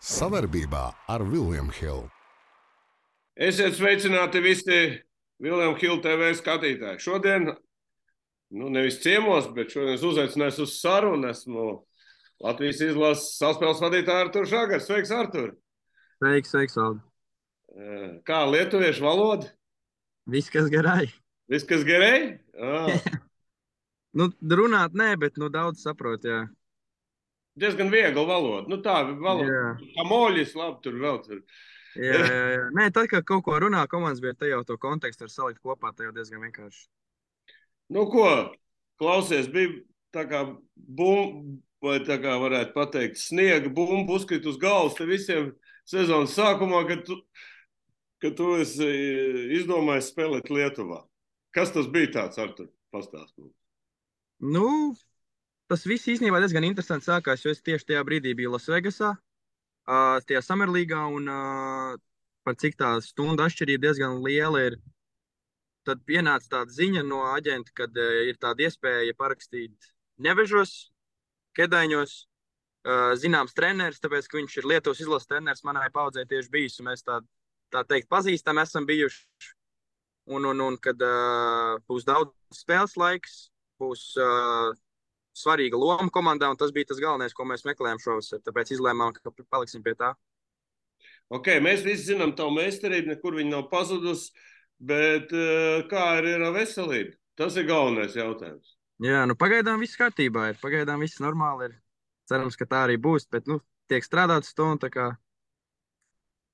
Savarbībā ar William Hill. Esiet sveicināti visi William Hill TV skatītāji. Šodien, nevis ciemos, bet šodien es uzaicināju uz sarunu. Esmu Latvijas izlases saspēles vadītāja Arturs Žagars. Sveiks, Artur! Sveiks, Valdi. Kā lietuviešu valoda? Viss, kas garai. Viss, kas gerai? Runāt nē, bet daudz saprot, jā. Diezgan viegla valoda. Tā valoda. Kā moļis, labi, tur vēl tur. Jā. Nē, tad, kad kaut ko runā komandas, bet te jau to kontekstu var salikt kopā, te jau diezgan vienkārši. Klausies, bija tā kā bumba, vai tā kā varētu pateikt, sniega bumba uzkrit uz galvas te visiem sezonas sākumā, kad tu esi izdomājis spēlēt Lietuvā. Kas tas bija tāds, Artur? Pastāst mums. Tas viss īstenībā diezgan interesanti sākās, jo es tieši tajā brīdī biju Lasvegasā, tajā Summerlīgā, un par cik tā stundu atšķirība diezgan liela ir. Tad pienāca tāda ziņa no aģenta, kad ir tāda iespēja parakstīt Nevežos, Kedaiņos, zināms treneris, tāpēc, ka viņš ir Lietuvas izlases treneris, manai paudzei tieši bijis, un mēs tā teikt pazīstami esam bijuši. Un kad būs daudz spēles laiks, būs svarīga loma komandā, un tas bija tas galvenais, ko mēs meklējām šovasar, tāpēc izlēmām, ka paliksim pie tā. Mēs visi zinām tavu meistarību, nekur viņa nav pazudusi, bet kā ir ar veselību? Tas ir galvenais jautājums. Jā, pagaidām viss kārtībā ir, pagaidām viss normāli ir. Cerams, ka tā arī būs, bet tiek strādāts to, un tā kā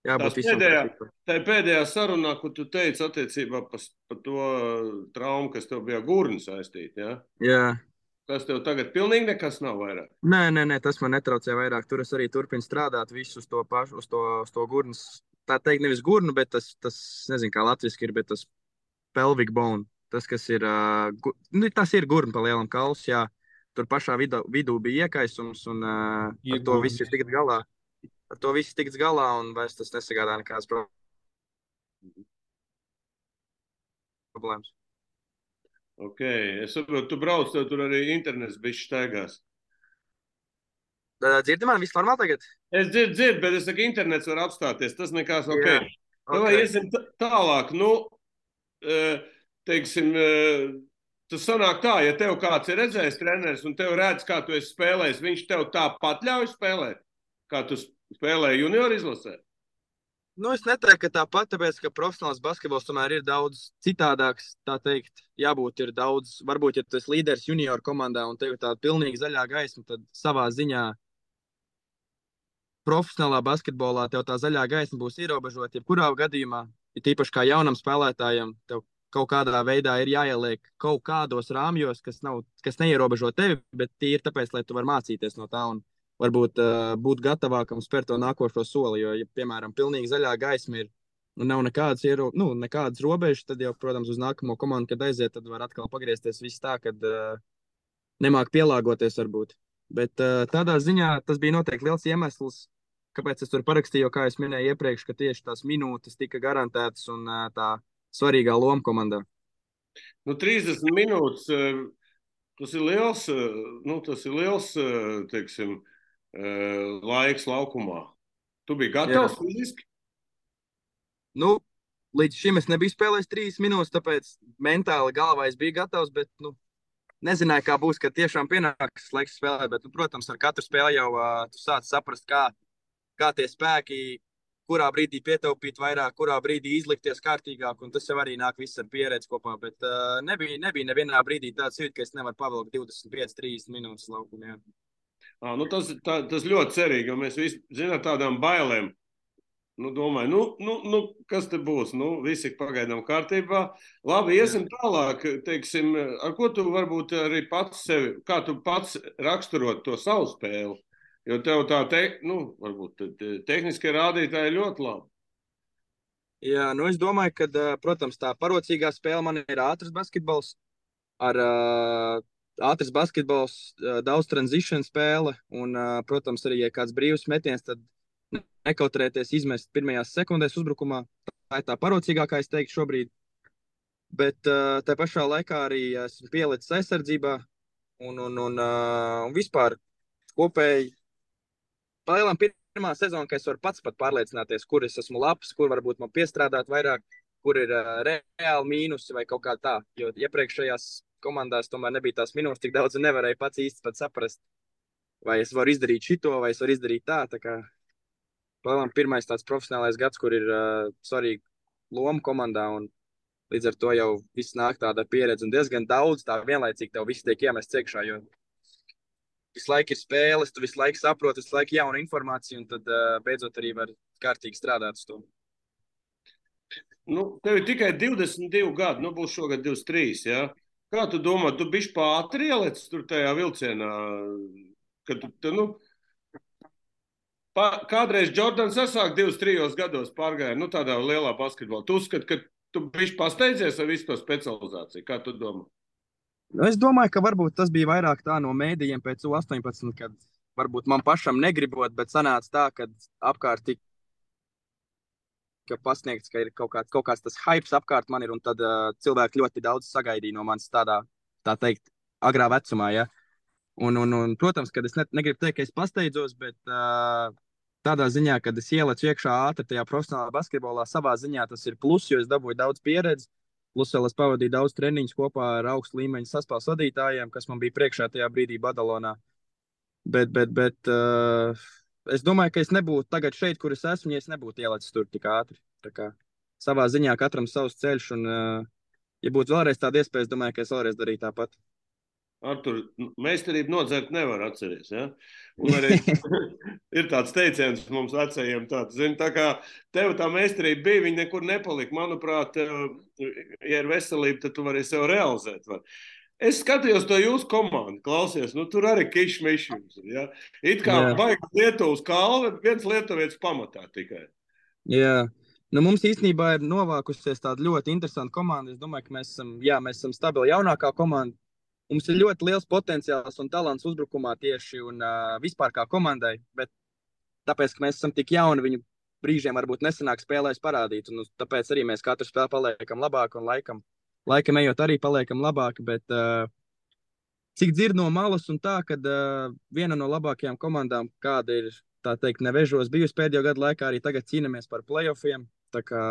jābūt visam kārtībā. Tā pēdējā sarunā, ko tu teici attiecībā par to traumu, kas tev bija gurnu saistīta, ja? Jā. Tas tev tagad pilnīgi nekas nav vairāk? Nē, tas man netraucē vairāk. Tur es arī turpinu strādāt visu uz to pašu, uz to gurnas. Tā teikt, nevis gurnu, bet tas nezinu, kā latviski ir, bet tas pelvic bone. Tas, kas ir, tas ir gurna pa lielam kauls, jā. Tur pašā vidū bija iekaisums, un ar to viss ir tikt galā. Ar to viss tiks galā, un vairs tas nesagādā nekādas problēmas. Es saprotu, tu brauc, tev tur arī internets bišķi staigās. Dzirdi man, viss normāli tagad? Es dzirdu, bet es saku, internets var apstāties, tas nekās ok. Vai iesim tālāk, teiksim, tas sanāk tā, ja tev kāds ir redzējis treneris un tev redz, kā tu esi spēlējis, viņš tev tāpat ļauj spēlēt, kā tu spēlēji junior izlasē? Es neteiktu, ka tāpat, tāpēc, ka profesionāls basketbols tomēr ir daudz citādāks, tā teikt, jābūt ir daudz, varbūt, ja tu esi līderis junior komandā un tev ir tāda pilnīgi zaļā gaisma, tad savā ziņā profesionālā basketbolā tev tā zaļā gaisma būs ierobežota, jebkurā gadījumā, ir tīpaši kā jaunam spēlētājam, tev kaut kādā veidā ir jāieliek kaut kādos rāmjos, kas neierobežo tevi, bet tie ir tāpēc, lai tu var mācīties no tā un varbūt būt gatavākam spērt to nākošo soli, jo, ja, piemēram, pilnīgi zaļā gaisma ir, nav nekādas robežas, tad jau, protams, uz nākamo komandu, kad aiziet, tad var atkal pagriezties viss tā, kad nemāk pielāgoties varbūt. Bet tādā ziņā tas bija noteikti liels iemesls, kāpēc es tur parakstīju, jo, kā es minēju iepriekš, ka tieši tās minūtes tika garantētas un tā svarīgā loma komandā. 30 minūtes, tas ir liels, teiksim, laiks laukumā. Tu biji gatavs fiziski? Līdz šim es nebiju spēlējis 3 minūtes, tāpēc mentāli galvā es biju gatavs, bet, nezināju, kā būs, kad tiešām pienāks laiks spēlēt, bet, protams, ar katru spēli jau tu sāc saprast, kā tie spēki, kurā brīdī pietaupīt vairāk, kurā brīdī izlikties kārtīgāk, un tas jau arī nāk viss ar pieredzi kopā, bet nebija nevienā brīdī tāds jūtas, ka es nevaru pavilkt 25-30 minūtes laukumā. Tas ļoti cerīgi, jo mēs visi zinām tādām bailēm. Domāju, kas te būs? Visi pagaidām kārtībā. Labi, iesim tālāk, teiksim, ar ko tu varbūt arī pats sevi, kā tu pats raksturot to savu spēli? Jo tev tā, varbūt tehniskie rādītāji ir ļoti labi. Jā, es domāju, ka, protams, tā parocīgā spēle man ir ātrs basketbols. Ar ātrs basketbols, daudz transition spēle un, protams, arī, ja kāds brīvs metiens, tad nekautrēties izmest pirmajās sekundēs uzbrukumā. Tā ir tā parocīgākā, es teiktu, šobrīd. Bet tā pašā laikā arī esmu pielicis aizsardzībā un vispār kopēji. Palielam pirmā sezona, ka es varu pats pat pārliecināties, kur es esmu labs, kur varbūt man piestrādāt vairāk, kur ir reāli mīnusi vai kaut kā tā. Jo iepriekšējās komandās tomēr nebija tās minūtes tik daudz un nevarēja pats īsti pat saprast, vai es varu izdarīt šito, vai es varu izdarīt tā. Tā kā pirmais tāds profesionālais gads, kur ir svarīga loma komandā un līdz ar to jau viss nāk tāda pieredze un diezgan daudz tā vienlaicīgi tev viss tiek iemests iekšā, jo visu laiku ir spēles, tu visu laiku saproti, visu laiku jauna informācija un tad beidzot arī var kārtīgi strādāt uz to. Nu, tev ir tikai 22 gadi, nu būs šogad 23, jā? Kā tu domā, tu bišķi pātri ielicis tur tajā vilcienā, kad tu, nu, kādreiz Jordans sasāk 23 gados pārgāja, nu tādā lielā basketbolā. Tu uzskati, ka tu bišķi pasteidzies ar visu to specializāciju, kā tu domā? Es domāju, ka varbūt tas bija vairāk tā no mēdījiem pēc U18, kad varbūt man pašam negribot, bet sanāca tā, ka apkārt tika pasniegts, ka ir kaut kāds tas hypes apkārt man ir, un tad cilvēki ļoti daudz sagaidīja no manis tādā, tā teikt, agrā vecumā, ja. Un protams, kad es negribu teikt, ka es pasteidzos, bet tādā ziņā, kad es ielecu iekšā ātri tajā profesionālā basketbolā, savā ziņā tas ir plus, jo es dabūju daudz pieredzi. Plus vēl es pavadīju daudz treniņus kopā ar augstu līmeņu saspēles vadītājiem, kas man bija priekšā tajā brīdī Badalonā. Bet es domāju, ka es nebūtu tagad šeit, kur es esmu, ja es nebūtu ielicis tur tik ātri. Tā kā savā ziņā katram savs ceļš, un ja būtu vēlreiz tāda iespēja, es domāju, ka es vēlreiz darītu tāpat. Artur, meistarību nodzert nevar atceries, ja? Un arī ir tāds teiciens mums vecajiem tāds, zini, tā kā tev tā meistarība bija, viņa nekur nepalika. Manuprāt, ja ir veselība, tad tu vari sev realizēt. Es skatījos to jūsu komandu, klausies, nu tur arī kišmišjums, ja? It kā baigi Lietuvas kalve, viens lietuvietis pamatā tikai. Jā. Nu, mums īstenībā ir novākusies tāda ļoti interesanta komanda. Es domāju, ka mēs esam stabili jaunākā komanda. Mums ir ļoti liels potenciāls un talants uzbrukumā tieši un vispār kā komandai, bet tāpēc, ka mēs esam tik jauni, viņu brīžiem varbūt nesanāk spēlēs parādīt, un tāpēc arī mēs katru spēli paliekam labāk un laikam ejot arī paliekam labāk, bet cik dzird no malas un tā, kad viena no labākajām komandām, kāda ir, tā teikt, nevežos bijusi pēdējo gadu laikā, arī tagad cīnamies par playoffiem, tā kā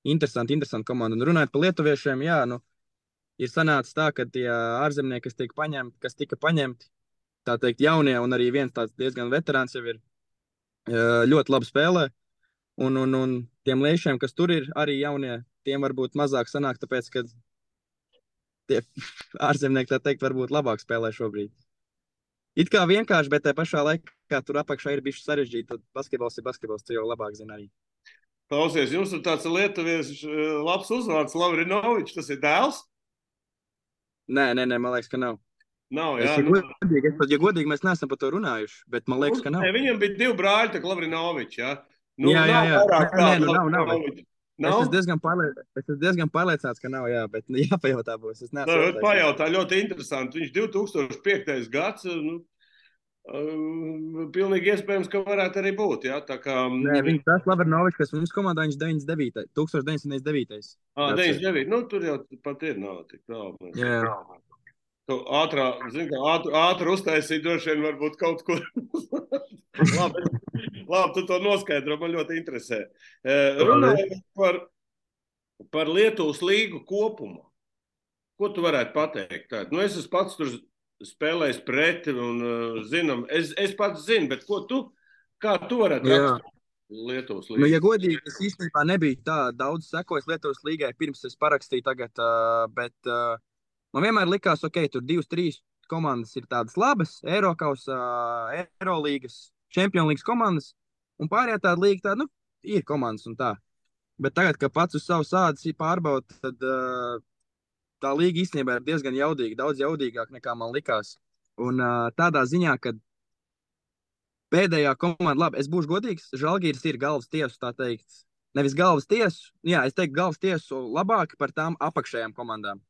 interesanti komanda. Un runājot par lietuviešiem, jā, nu, ir sanācis tā, ka tie ārzemnieki, kas tika paņemti, tā teikt, jaunie, un arī viens tāds diezgan veterāns jau ir ļoti labi spēlē. Un tiem liešiem, kas tur ir arī jaunie, tiem varbūt mazāk sanāk, tāpēc, ka tie ārzemnieki, tā teikt, varbūt labāk spēlē šobrīd. It kā vienkārši, bet tajā pašā laikā tur apakšā ir bišķi sarežģīti, tad basketbols ir basketbols, tu jau labāk zini arī. Klausies, jums ir tāds lietuviešu labs uzvārds, Lavrinovičs, tas ir dēls? Nē, man liekas, ka nav. Nav, jā. Ja godīgi, mēs neesam par to runājuši, bet man liekas, ka nav. Ne, viņam bija 2 brāļi, tā Lavrinovičs, jā. Nu, jā. Nav. Es esmu diezgan pārliecināts, ka nav, jā, bet jāpajautā būs. Pajautā, ļoti interesanti. Viņš 2005. gads, nu, pilnīgi iespējams, ka varētu arī būt, jā, tā kā... Nē, viņš tas Lavrinovičs, kas mums komandā, viņš 1999. 99, nu, tur jau pat ir nav tik tālu. Jā. Ātri uztaisīt droši vien varbūt kaut kur. Labi, tu to noskaidro, man ļoti interesē. Runājot par Lietuvas līgu kopumā. Ko tu varētu pateikt? Nu, es esmu pats tur spēlējis pret un zinām. Es pats zinu, bet kā tu varētu rakstīt Lietuvas līgu? Nu, ja godīgi, es īstenībā nebiju tā daudz sekojis Lietuvas līgai, pirms es parakstīju tagad, bet... Man vienmēr likās, ok, tur 2-3 komandas ir tādas labas, Eirokausā, Eirolīgas, Čempionlīgas komandas, un pārējā tāda līga tāda, nu, ir komandas un tā. Bet tagad, kad pats uz savu sādas pārbauda, tad tā līga īstenībā ir diezgan jaudīga, daudz jaudīgāk nekā man likās. Un tādā ziņā, ka pēdējā komanda, labi, es būšu godīgs, Žalgiris ir galvas tiesu, tā teikt. Nevis galvas tiesu, jā, es teiktu galvas tiesu labāk par tām apakšējām komandām.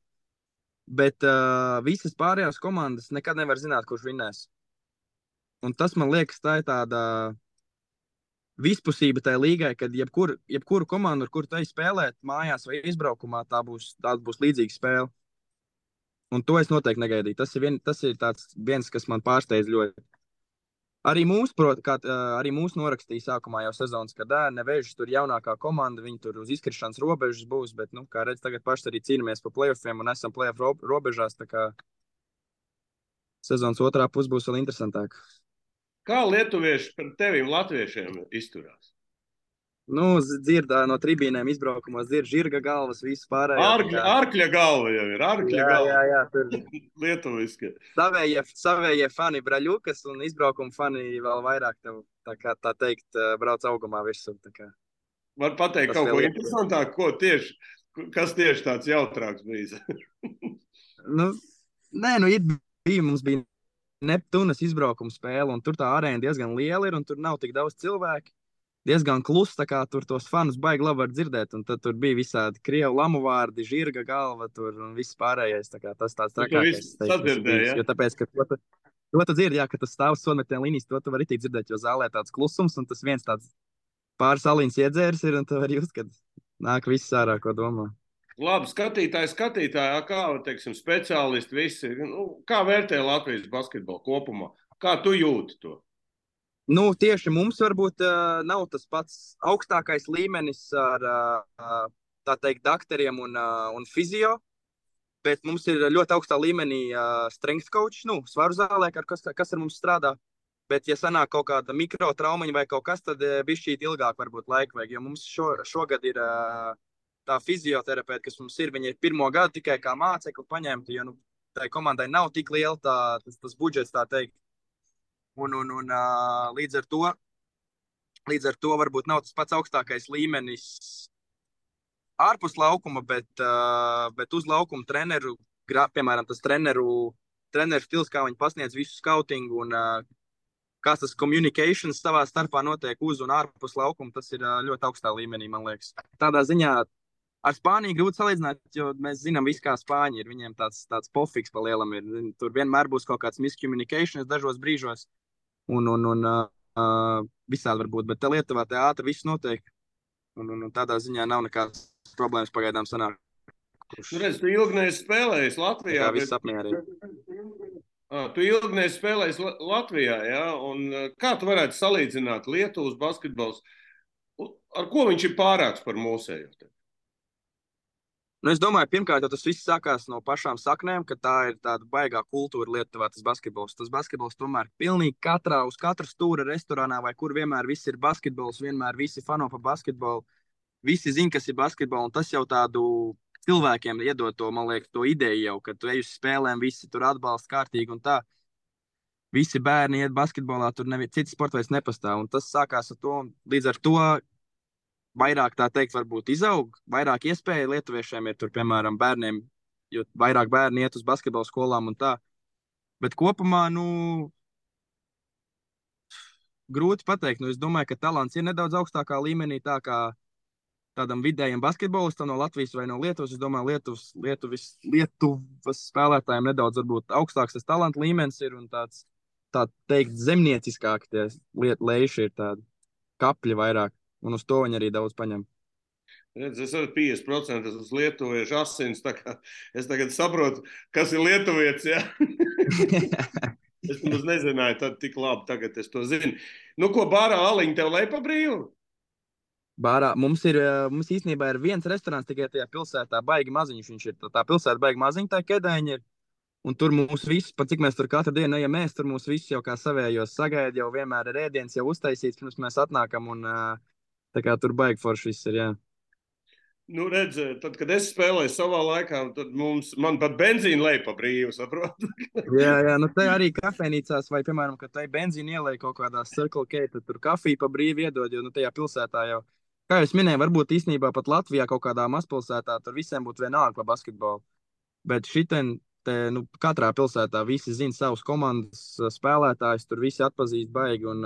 Bet visas pārējās komandas nekad nevar zināt, kurš vinnēs. Un tas, man liekas, tā ir tāda vispusība tajā līgai, kad jebkuru komandu, ar kuru tu ej spēlēt mājās vai izbraukumā, tā būs līdzīga spēle. Un to es noteikti negaidīju. Tas ir viens, kas man pārsteidz ļoti. Arī mūs norakstīja sākumā jau sezonas, kad Nevežas tur jaunākā komanda, viņi tur uz izkrišanas robežas būs, bet, nu, kā redz, tagad paši arī cīnāmies pa playoffiem un esam playoff robežās, tā kā sezonas otrā puse būs vēl interesantāk. Kā lietuvieši par tevim latviešiem izturās? Nu, dzirdā no tribīnēm izbraukumos, dzird žirga galvas, visu pārējo. Ārkļa galva jau ir, Jā, tur lietuviski. savējie fani Braļukas un izbraukuma fani vēl vairāk tev, tā teikt, brauc augumā virsū. Var pateikt kaut ko interesantāku, kas tieši tāds jautrāks bijis? Mums bija Neptūnas izbraukuma spēle, un tur tā arēna diezgan liela ir, un tur nav tik daudz cilvēku. Diezgan kluss, tā kā tur tos fanus baigi labi var dzirdēt, un tad tur bija visādi krievu lamu vārdi, žirga galva tur un viss pārējais, tā kā tas tāds trakākais. Jo tāpēc, ka to tu dzirdi, jā, ka tas stāv uz sonmetiena līnijas, to tu vari tik dzirdēt, jo zālē tāds klusums, un tas viens tāds pāris aliņas iedzērs ir, un tu vari just, kad nāk viss ārā, ko domā. Labi, skatītāji, kā, teiksim, speciālisti visi, kā vērtē Latvijas basketbolu kopumā? Kā tu jūti to? Tieši mums varbūt nav tas pats augstākais līmenis ar, tā teikt, dakteriem un fizio, bet mums ir ļoti augstā līmenī strength coach, svaru zālē, kas ar mums strādā. Bet, ja sanāk kaut kāda mikrotraumiņa vai kaut kas, tad bišķīt ilgāk varbūt laika vajag, jo mums šogad ir tā fizioterapeita, kas mums ir, viņa ir pirmo gadu tikai kā mācekli paņemta, jo tai komandai nav tik liela tas budžets, tā teikt. Un līdz ar to varbūt nav tas pats augstākais līmenis ārpus laukuma, bet uz laukuma treneru, piemēram, tas treneru stils, kā viņi pasniedz visu skautingu un kā tas communications savā starpā notiek uz un ārpus laukuma, tas ir ļoti augstā līmenī, man liekas. Tādā ziņā ar Spāniju grūti salīdzināt, jo mēs zinām visu, kā Spāņi ir. Viņiem tāds pofiks pa lielam ir. Tur vienmēr būs kaut kāds miscommunications dažos brīžos. Un visādi var būt, bet te Lietuvā te ātri viss notiek. Un tādā ziņā nav nekādas problēmas pagaidām sanāk. Redz, tu ilgnēs spēlējis Latvijā. Tā viss apmierina. Tu ilgnēs spēlējis Latvijā, jā? Un kā tu varētu salīdzināt Lietuvas basketbols? Ar ko viņš ir pārāks par mūsējo? Es domāju, pirmkārt, tas viss sākās no pašām saknēm, ka tā ir tāda baigā kultūra Lietuvā, tas basketbols. Tas basketbols tomēr pilnīgi uz katra stūra restorānā vai kur vienmēr viss ir basketbols, vienmēr visi fano pa basketbolu. Visi zin, kas ir basketbols, un tas jau tādu cilvēkiem iedod to, man liekas, to ideju jau, ka tu ej uz spēlēm, visi tur atbalsta kārtīgi un tā. Visi bērni iet basketbolā, tur cits sports vairs nepastāv, un tas sākās ar to, un līdz ar to vairāk, tā teikt, varbūt izaug, vairāk iespēja lietuviešiem ir tur, piemēram, bērniem, jo vairāk bērni iet uz basketbola skolām un tā. Bet kopumā, grūti pateikt. Es domāju, ka talants ir nedaudz augstākā līmenī, tā kā tādam vidējam basketbolistam no Latvijas vai no Lietuvas. Es domāju, Lietuvas spēlētājiem nedaudz varbūt augstāks tas talanta līmenis ir un tāds, tā teikt, zemnieciskāk tie leiši ir tādi kapļi vairāk. Un uz to viņi arī daudz paņem. Redz, es arī 50% uz lietuviešu asins, tā kā es tagad saprotu, kas ir lietuvietis, jā? Es nemaz nezināju, tad tik labi, tagad es to zinu. Ko bārā aliņa tev lej pa brīvu? Bārā, mums īstenībā ir viens restorāns tikai tajā pilsētā, baigi maziņš viņš ir. Tā pilsēta baigi maziņa, tā Kedēņa ir. Un tur mūs visi, pat cik mēs tur katru dienu ejam mēs, tur mūs visi jau kā savējos sagaida, jau vienmēr ir ēdiens jau uztaisīts, pirms mēs atnākam un tā kā tur baigi forši viss ir, jā. Redz, tad, kad es spēlēju savā laikā, tad man pat benzīna lej pa brīvu, saprotu? jā, te arī kafejnīcās vai, piemēram, kad tai benzīna ielej kaut kādā Circle K, tad tur kafiju pa brīvu iedod, jo tajā pilsētā jau, kā jūs minēju, varbūt īstenībā pat Latvijā kaut kādā mazpilsētā, tur visiem būtu vienalga pa basketbolu. Bet šitien, katrā pilsētā visi zina savus komandas spēlētājus, tur visi atpazīst baigi un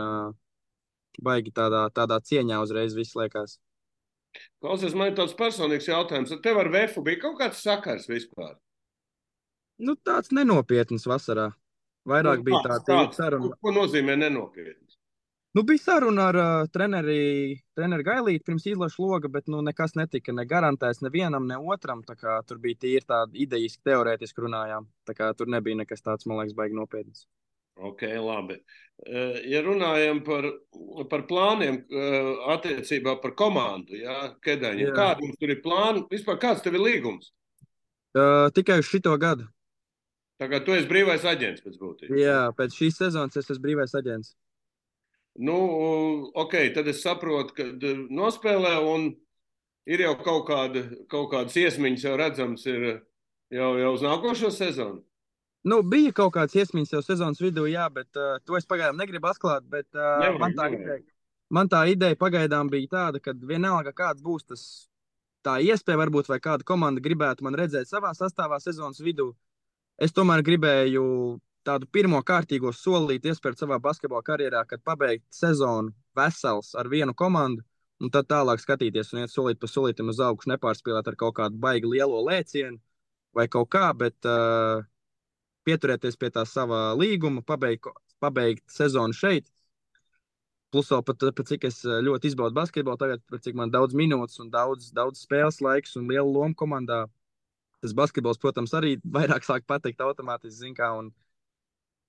baigi tādā cieņā uzreiz viss liekas. Klausies, man ir tāds personīgs jautājums. Tev ar Vefu bija kaut kāds sakars vispār? Tāds nenopietns vasarā. Vairāk bija tāda saruna. Ko nozīmē nenopietns? Bija saruna ar treneri Gailīti pirms izlašu loga, bet nekas netika ne garantēts nevienam, ne otram. Tā kā tur bija tīri tāda idejiski, teorētiski runājām. Tā kā tur nebija nekas tāds, man liekas, baigi nopietns. Ok, labi. Ja runājam par plāniem attiecībā par komandu, jā, Kedaņiem, Jā. kādi mums tur ir plāni? Vispār kāds tev ir līgums? Tikai uz šito gadu. Tā kā tu esi brīvais aģents pēc būtības. Jā, Ja? pēc šīs sezonas es esmu brīvais aģents. Nu, ok, tad es saprotu, ka nospēlē un ir jau kaut kādas iesmiņas jau redzams ir jau uz nākošo sezonu. Nu, bija kaut kāds iesmiņas jau sezonas vidū, jā, bet to es pagaidām negribu atklāt. Bet, Nevajag. man tā ideja pagaidām bija tāda, ka vienalga kāds būs tas, tā iespēja varbūt, vai kāda komanda gribētu man redzēt savā sastāvā sezonas vidū. Es tomēr gribēju tādu pirmo kārtīgo solīti iespērt savā basketbola karjerā, kad pabeigt sezonu vesels ar vienu komandu, un tad tālāk skatīties un iet solīt pa solītam uz augšu, nepārspīlēt ar kaut kādu baigi lielo lēcienu vai kaut kā, bet pieturēties pie tā sava līguma, pabeigt sezonu šeit. Plus, vēl pat cik es ļoti izbaudu basketbolu, tagad, cik man daudz minūtes un daudz spēles laiks un liela loma komandā. Tas basketbols, protams, arī vairāk sāk patikt automātiski, zin kā, un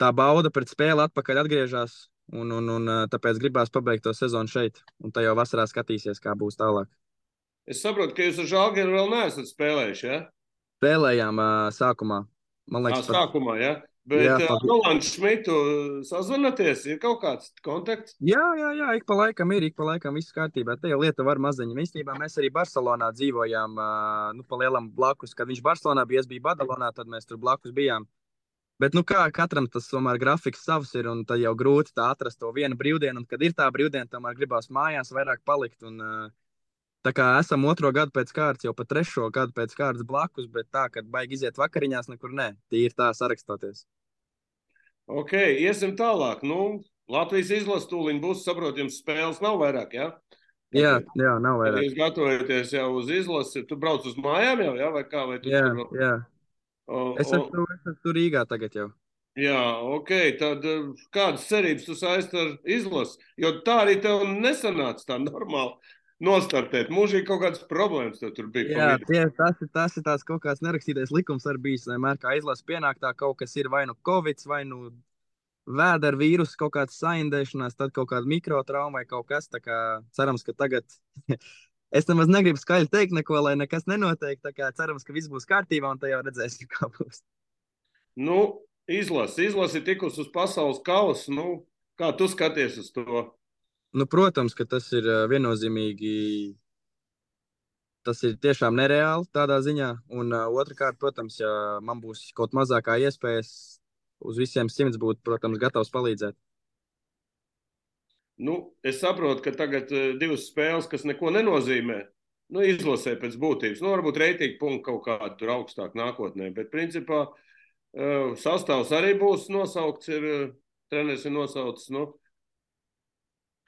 tā bauda pret spēli atpakaļ atgriežas, un tāpēc gribās pabeigt to sezonu šeit, un tā jau vasarā skatīsies, kā būs tālāk. Es saprotu, ka jūs ar Žalgiru vēl neesat spēlējuši, ja? Spēlējām sākumā, man liekas, Sākumā, ja? Bet jā, Rolandu Šmitu sazvanaties, ir kaut kāds kontakts? jā, ik pa laikam viss kārtībā. Te jau lieta var maziņa. Īstenībā mēs arī Barcelonā dzīvojām, nu, pa lielam blakus. Kad viņš Barcelonā bija, es biju Badalonā, tad mēs tur blakus bijām. Bet, nu, kā katram tas tomēr grafiks savs ir, un tad jau grūti tā atrast to vienu brīvdienu, un kad ir tā brīvdiena, tomēr gribās mājās vairāk palikt, un tā kā esam 2. gadu pēc kārtas, jau pa 3. gadu pēc kārtas blakus, bet tā, kad baigi iziet vakariņās, nekur nē, tīri tā sarakstoties. Ok, iesim tālāk. Nu, Latvijas izlase tūliņ būs, saprot, jums spēles nav vairāk, ja? Jā, nav Kad vairāk. jūs gatavojaties jau uz izlasi, tu brauc uz mājām jau, ja? Vai kā? Vai tu tur vēl? Jā. O, Es esmu tur Rīgā tagad jau. jā, ok, tad kādas cerības tu saisti ar izlasi? Jo tā arī tev nesanāca tā normāli nostartēt. Mūžīgi kaut kādas problēmas tev tur bija. Jā, tas ir tās kaut kāds nerakstītais likums arī bijis. Vienmēr kā izlase pienāk, tā kaut kas ir vai nu covid, vai nu vēdera vīruss, kaut kāds saindēšanās, tad kaut kāda mikrotrauma vai kaut kas. Tā kā cerams, ka tagad es nemaz negribu skaļi teikt neko, lai nekas nenotiek. Tā kā cerams, ka viss būs kārtībā un tad jau redzēsim, kā būs. Nu, izlasi ir tikus uz pasaules kausa. Nu, kā tu skaties uz to? Nu, protams, ka tas ir viennozīmīgi. Tas ir tiešām nereāli tādā ziņā. Un otrkārt, protams, ja man būs kaut mazākā iespējas uz visiem 100 būt, protams, gatavs palīdzēt. Nu, es saprotu, ka tagad 2 spēles, kas neko nenozīmē, nu, izlasē pēc būtības. Nu, varbūt reitingu punktu kaut kādu tur augstāk nākotnē, bet principā sastāvs arī būs nosaukts, treneris ir nosaucis, nu,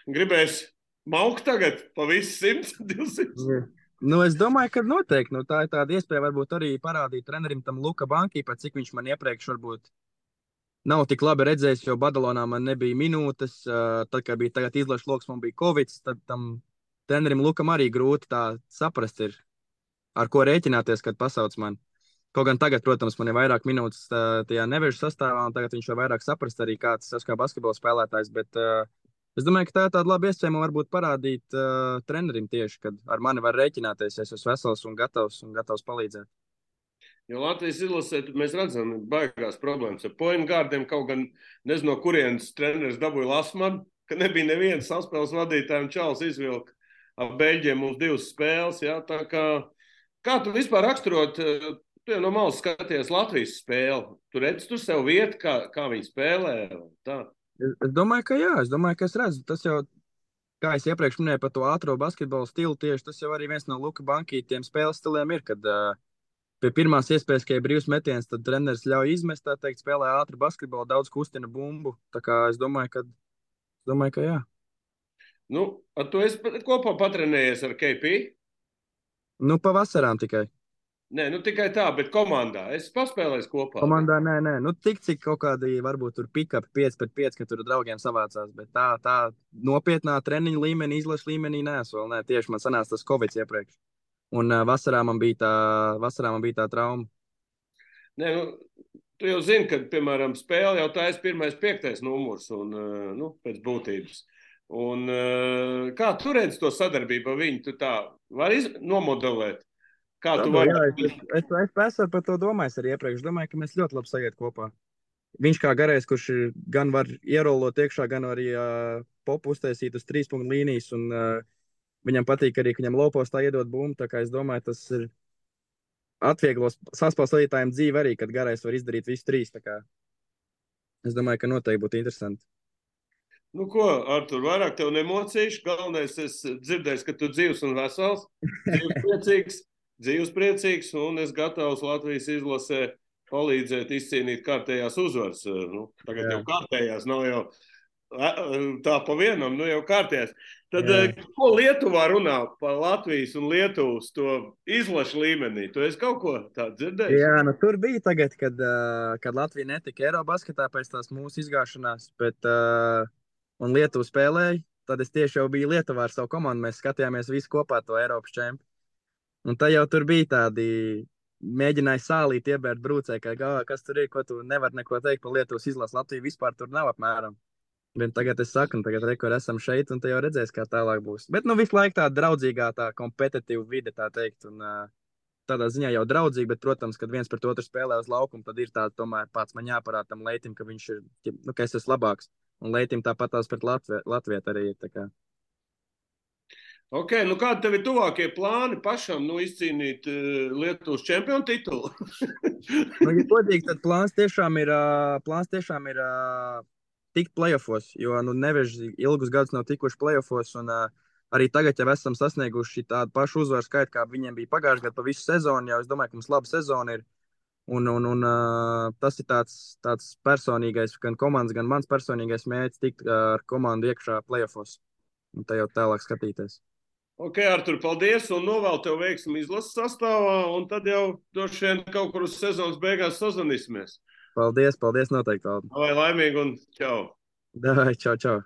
gribēs maukt tagad pa visu 100, 200. Jā. Nu, es domāju, ka noteikti. Nu, tā ir tāda iespēja varbūt arī parādīt trenerim tam Luka Bankī, pat cik viņš man iepriekš varbūt nav tik labi redzējis, jo Badalonā man nebija minūtes. Tad, kad bija tagad izlaša loks, man bija covid, tad tam trenerim Lukam arī grūti tā saprast ir, ar ko rēķināties, kad pasauc man. Kaut gan tagad, protams, man ir vairāk minūtes tajā nevežu sastāvā, un tagad viņš var vairāk saprast arī, kāds tas kā basketbola spēlētājs, bet es domāju, ka tā ir tāda laba iespēja man varbūt parādīt trenerim tieši, kad ar mani var rēķināties, ja es esmu vesels un gatavs palīdzēt. Jo Latvijas izlasē mēs redzam, ka baigās problēmas ar point guardiem, kaut gan nezinu, no kurienes treneris dabūja Lasmanu, ka nebija neviens saspēles vadītājiem čals izvilka ap Beļģiem mums 2 spēles. Ja? Tā kā tu vispār raksturot, tu jau no malas skaties Latvijas spēli, tu redzi tur sev vietu, kā viņi spēlē? Tā. Es domāju, ka jā, es redzu, tas jau, kā es iepriekš minēju par to ātro basketbolu stilu, tieši tas jau arī viens no Luka Bankī tiem spēles stiliem ir, kad pie pirmās iespējas, ka ir brīvs metiens, tad treneris ļauj izmest, tā teikt, spēlē ātru basketbolu, daudz kustina bumbu. Tā kā es domāju, ka jā. Nu, tu esi kopā patrenējies ar KP? Nu, pavasarām tikai. Nē, nu tikai tā, bet komandā. Es paspēlēju kopā. Komandā nē. Nu, tik cik kaut kādi varbūt tur pick-up 5-5, ka tur draugiem savācās, bet tā nopietnā treniņa līmenī, izlaša līmenī neesmu vēl. Nē, tieši man sanāca tas covid iepriekš. Un vasarā man bija tā trauma. Nē, nu, Tu jau zini, ka, piemēram, spēle jau tā ir 1.5. numurs un, pēc būtības. Un, kā tu redzi to sadarbību ar viņu? Tu tā vari nomodelēt, kā tu vari. Es esmu par to domājis arī iepriekš. Domāju, ka mēs ļoti labi sajiet kopā. Viņš kā garais, kurš gan var ierolot iekšā, gan arī popu uztaisīt uz 3 punktu līnijas. Un, viņam patīk arī, ka viņam lopos tā iedot bumbu. Tā kā es domāju, tas ir atvieglos saspēlētājiem dzīvi arī, kad garais var izdarīt visu 3. Tā kā es domāju, ka noteikti būtu interesanti. Nu ko, Artur, vairāk tev nemocīšu. Galvenais, es dzirdēju, ka tu dzīvs un vesels, dzīvs priecīgs, un es gatavs Latvijas izlasē palīdzēt izcīnīt kārtējās uzvaras. Tagad jau kārtējās, nav jau tā pa vienam, jau kārtējās. Tad, ko Lietuvā runā par Latvijas un Lietuvas to izlašu līmenī? Tu esi kaut ko tādu dzirdējis? Jā, tur bija tagad, kad Latvija netika Eirobasketā pēc tās mūsu izgāšanās, bet un Lietuva spēlēja, tad es tieši jau biju Lietuvā ar savu komandu. Mēs skatījāmies visi kopā to Eiropas čempionu. Un tā jau tur bija tādi, mēģināja sālīt iebērt brūcē, kas tur ir, ko tu nevar neko teikt par Lietuvas izlasu. Latvija vispār tur nav apmēram. Bet tagad es saku, tagad esam šeit, un te jau redzēs, kā tālāk būs. Bet visu laiku tā draudzīgā, tā kompetitīva vide, tā teikt. Un, tādā ziņā jau draudzīgi, bet, protams, kad viens pret otru spēlē uz laukumu, tad ir tāds, tomēr pats man jāparāda tam Leitim, ka viņš ir, ka es esmu labāks. Un Leitim tāpat tās pret Latviet arī ir. Tā kā. Ok, kādi tev ir tuvākie plāni pašam izcīnīt Lietuvas čempionu titulu? Ja godīgi, tad plāns tiešām ir tikt playoffos, jo Neveži ilgus gadus nav tikuši playoffos, un arī tagad jau esam sasnieguši tādu pašu uzvaru skaitu, kā viņiem bija pagājušajā gadā pa visu sezonu. Jau es domāju, ka mums laba sezona ir. Un tas ir tāds personīgais, gan komandas, gan mans personīgais mērķis tikt ar komandu iekšā playoffos. Un tā jau tālāk skatīties. Ok, Artur, paldies, un novēlu tev veiksmi izlases sastāvā, un tad jau droši vien kaut kur uz sezonas beigās sazvanīsimies. Paldies, noteikti. Lai laimīgi un čau! Davai, čau.